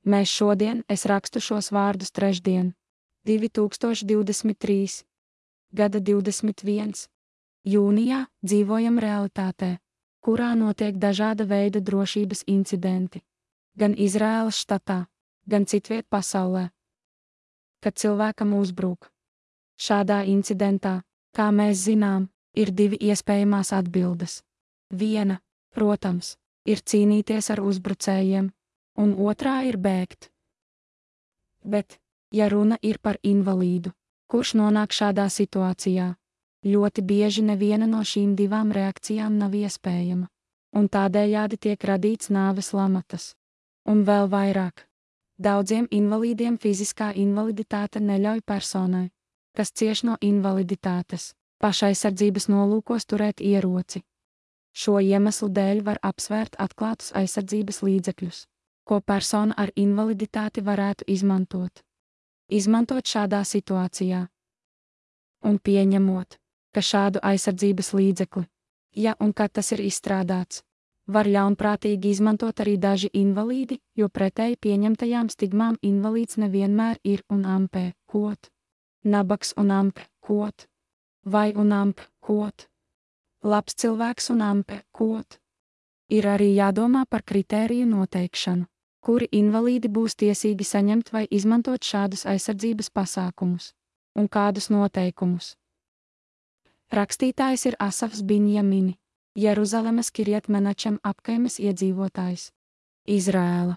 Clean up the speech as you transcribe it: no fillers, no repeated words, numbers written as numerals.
Mēs šodien, es rakstu šos vārdus trešdien, 2023. gada 21. jūnijā dzīvojam realitātē, kurā notiek dažāda veida drošības incidenti, gan Izraēlas štatā, gan citviet pasaulē. Kad cilvēkam uzbruk. Šādā incidentā, kā mēs zinām, ir divi iespējamās atbildes. Viena, protams, ir cīnīties ar uzbrucējiem, un otrā ir bēgt. Bet, ja runa ir par invalīdu, kurš nonāk šādā situācijā, ļoti bieži neviena no šīm divām reakcijām nav iespējama, un tādējādi tiek radīts nāves lamatas. Un vēl vairāk. Daudziem invalīdiem fiziskā invaliditāte neļauj personai, kas cieš no invaliditātes, pašaizsardzības nolūkos turēt ieroci. Šo iemeslu dēļ var apsvērt atklātus aizsardzības līdzekļus, ko persona ar invaliditāti varētu izmantot. Izmantot šādā situācijā. Un pieņemot, ka šādu aizsardzības līdzekli, ja un kad tas ir izstrādāts, var ļaunprātīgi izmantot arī daži invalīdi, jo pretēji pieņemtajām stigmām invalīds nevienmēr ir un ampē, kot. Nabaks un ampē, kot. Vai un ampē, kot. Labs cilvēks un ampē, kot. Ir arī jādomā par kritēriju noteikšanu, kuri invalīdi būs tiesīgi saņemt vai izmantot šādus aizsardzības pasākumus, un kādus noteikumus. Rakstītājs ir Asafs Binjamini, Jeruzalemes Kirjat Menačem apkaimes iedzīvotājs. Izraēla.